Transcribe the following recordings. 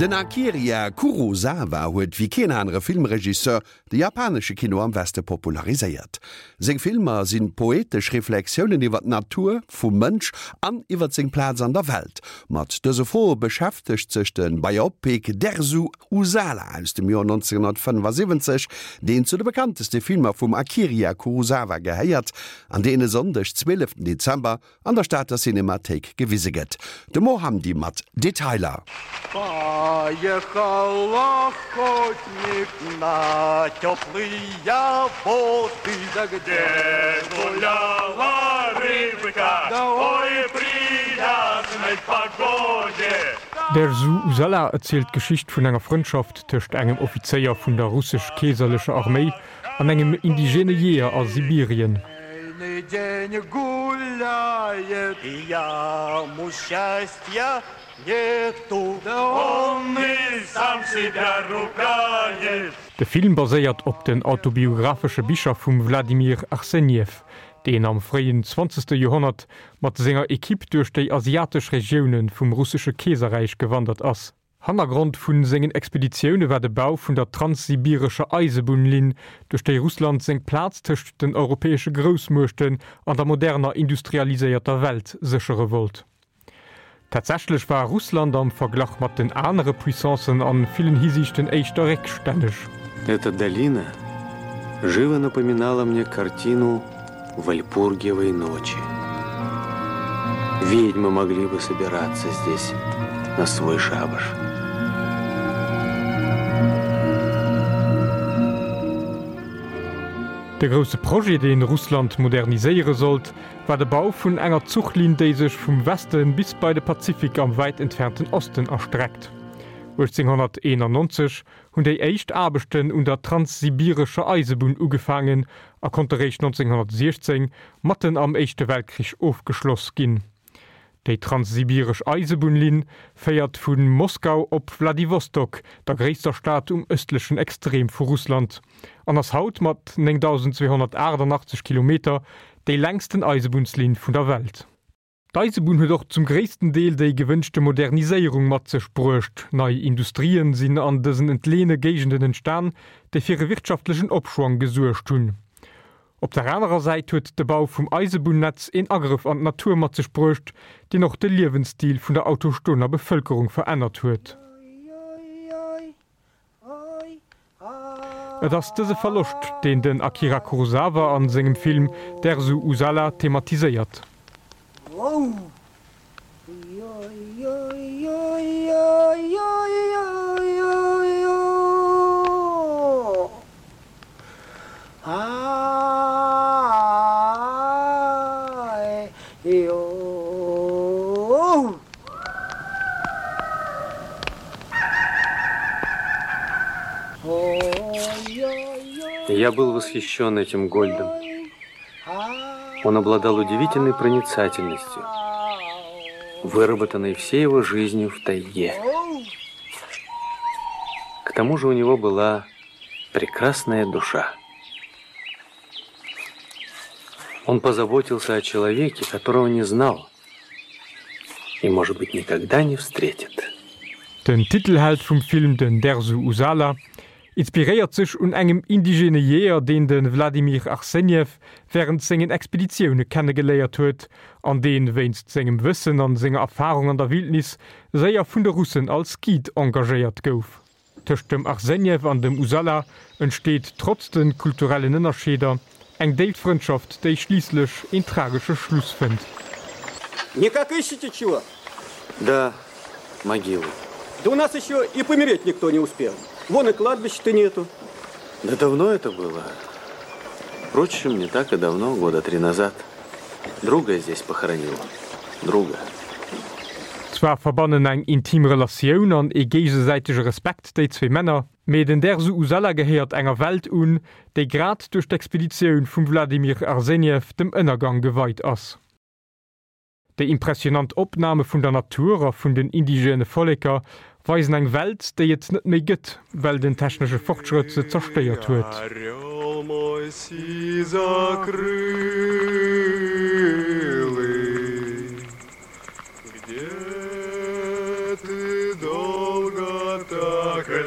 Den Akira Kurosawa huet wéi keen anere Filmregisseur de japanesche Kino am Weste populariséiert. Seng Filmer si poetesch Reflexiounen iwwer d'Natur vum Mënsch an iwwer seng Plaz an der Welt. Mat dëse Froe beschäftegt sech de Biopic Dersu Uzala aus dem Joer 1975, deen zu de bekannteste Filmer vum Akira Kurosawa gehéiert an deen e Sonndeg, 12 Dezember, an der Stater Cinemathéik gewise gëtt. De Mo Hamdi mat Detailer. Поехал охотник на теплые воды, да где гуляла рыбка, ой, приятной погоде. Dersu Uzala erzielt d'Geschicht vun enger Frëndschaft tëscht engem Offizéier vun der russesch-keeserlecher Arméi an engem indigene Jeeër a Sibirien. De Film baséiert op den autobiographesche Bicher vum Wladimir Arsenjew, deen am fréien zwanzegste Joerhonnert mat senger Ekipp duerch déi asiatesch Regioune vum russesche Keeserräich gewandert ass. Hannergrond vu sengen Expeditioune war de Bau vun der transsibirescher Eisebunnlinn, duerch déi Russland seng Plaz tëscht den europäesche Groussmuechten an der moderner industrialiséierter Welt séchere wollt. Tatsächlech war Russland am Verglach mat den anere Puissancen a villen Hisiichten éischter réckstänneg. Эта долина живо напоминала мне картину Вальпургиевой ночи. Ведьмы могли бы собираться здесь на свой шабаш. De grousse Projet, dee Russland moderniséiere sollt, war de Bau vun enger Zuchlinn, déi sech vum Weste bis bei de Pazifik am wäit entfernten Osten erstreckt. 1891 hunn déi éischt Aarbechten un der Transsibirescher Eisebunn ugefaangen a konnte réischt 1916, matten am Éischte Weltkrich, ofgeschloss ginn. Déi Transsibiresch Eisebunnlinn féiert vu Moskau op Wladiwostok, der gréisster Stad um ëstlechen Extrem vu Russland, an ass haut mat 9.288 Kilometer déi längsten Eisebunnslinn vun der Welt. D'Eisebunn huet och zum gréissten Deel déi gewënschte Moderniséierung mat sech bruecht. Nei Industrien sinn an dësen entleeëne Géigenden entstan, déi fir e wirtschaftlechen Opschwong gesuergt hunn. Op der anerer Säit huet de Bau vum Eisebunnetz een Agrëff an d'Natur mat sech bruecht, deen och de Liewensstil vun der autochtoner Bevëlkerung verännert huet. Et ass dëse Verloscht, deen den Akira Kurosawa a sengem Film Dersu Uzala thematiséiert. Я был восхищен этим Гольдом. Он обладал удивительной проницательностью, выработанной всей его жизнью в тайге. К тому же у него была прекрасная душа. Он позаботился о человеке, которого не знал и, может быть, никогда не встретит. Den Titelheld vum Film, den Dersu Uzala, inspiréiert sech un engem indigene Jeeër, deen de Vladimir Arsenjew wärend sengen Expeditioune kennegeléiert huet an deen, wéinst sengem Wëssen an senger Erfarung an der Wildnis, séier vun de Russen als Guide engagéiert gouf. Tëscht dem Arsenjew an dem Uzala entsteet, trotz de kulturellen Ënnerscheeder, eng déif Frëndschaft, déi schliisslech een tragesche Schluss fënnt. Никак ищете чего? Да, могилу. Да у нас еще и помереть никто не успел. Вон и кладбища-то нету. Да давно это было. Впрочем, не так и давно, года три назад. Друга здесь похоронил. Друга. Zwar verbannen eng intim Relatioun an ee géigesäitege Respekt déi zwee Männer, mee den Dersu Uzala gehéiert enger Welt un, déi grad duerch d'Expeditioun vum Wladimir Arsenjew dem Ënnergang geweit ass. Déi impressionant Opname vun der Natur a vun den indigène Volleker weisen eng Welt, déi et net méi gëtt, well den technesche Fortschrëtt se zerstéiert huet. Ну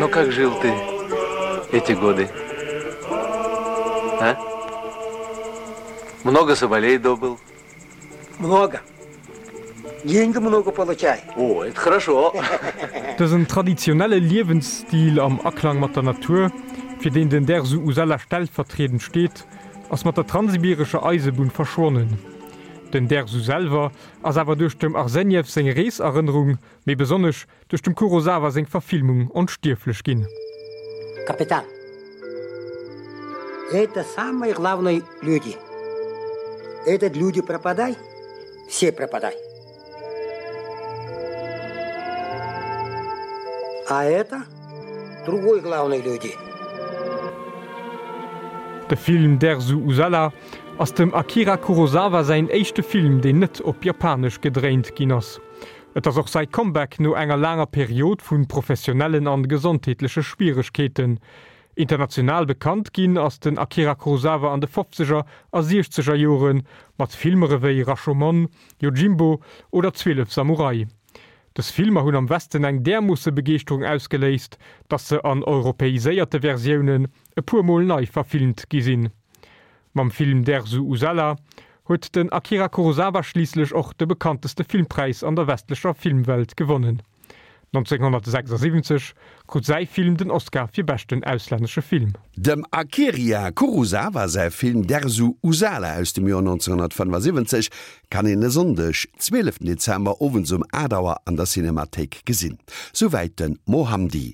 как жил ты эти годы? А? Много соболей добыл? Много. Деньги много получай. О, это хорошо. Dësen traditionelle Liewensstil am Aklang mat der Natur, fir deen den Dersu Usella stellvertriedend steet, ass mat der Transsibirescher Eisebunn verschwonnen. Den Dersu selwer ass awer duerch dem Arsenjew seng Reeserënnerung, méi besonnesch duerch dem Kurosawa seng Verfilmung onstierflech ginn. Капитан, это самые главные люди. Этот люди пропадай, все пропадай. А это другой главные люди. De Film Dersu Uzala ass dem Akira Kurosawa säin éischte Film, deen net op Japanesch gedréint ginn ass. Et ass och säi Comeback no enger laanger Period vu professionellen an gesondheetleche Schwieregkeeten. International bekannt ginn ass den Akira Kurosawa an de fofzeger a siechzeger Jore mat Filmer ewéi Rashomon, Yojimbo oder 12 Samurai. Dës Filmer hunn am Westen eng därmoosse Begeeschterung ausgeléist, datt se an europäiséierte Versiounen e puer Mol nei verfilmt gi sinn. Mam Film Dersu Uzala huet den Akira Kurosawa schliisslech och de bekannteste Filmpräis an der westlecher Filmwelt gewonnen. 1976 krut säi Film den Oscar fir beschten auslännesche Film. Dem Akiria Kurosawa säi Film Dersu Uzala aus dem Joer 1975 kann een e Sonndeg, 12 Dezember, owends um 8 Auer an der Cinemathéik gesinn. Souwäit de Mohamdi.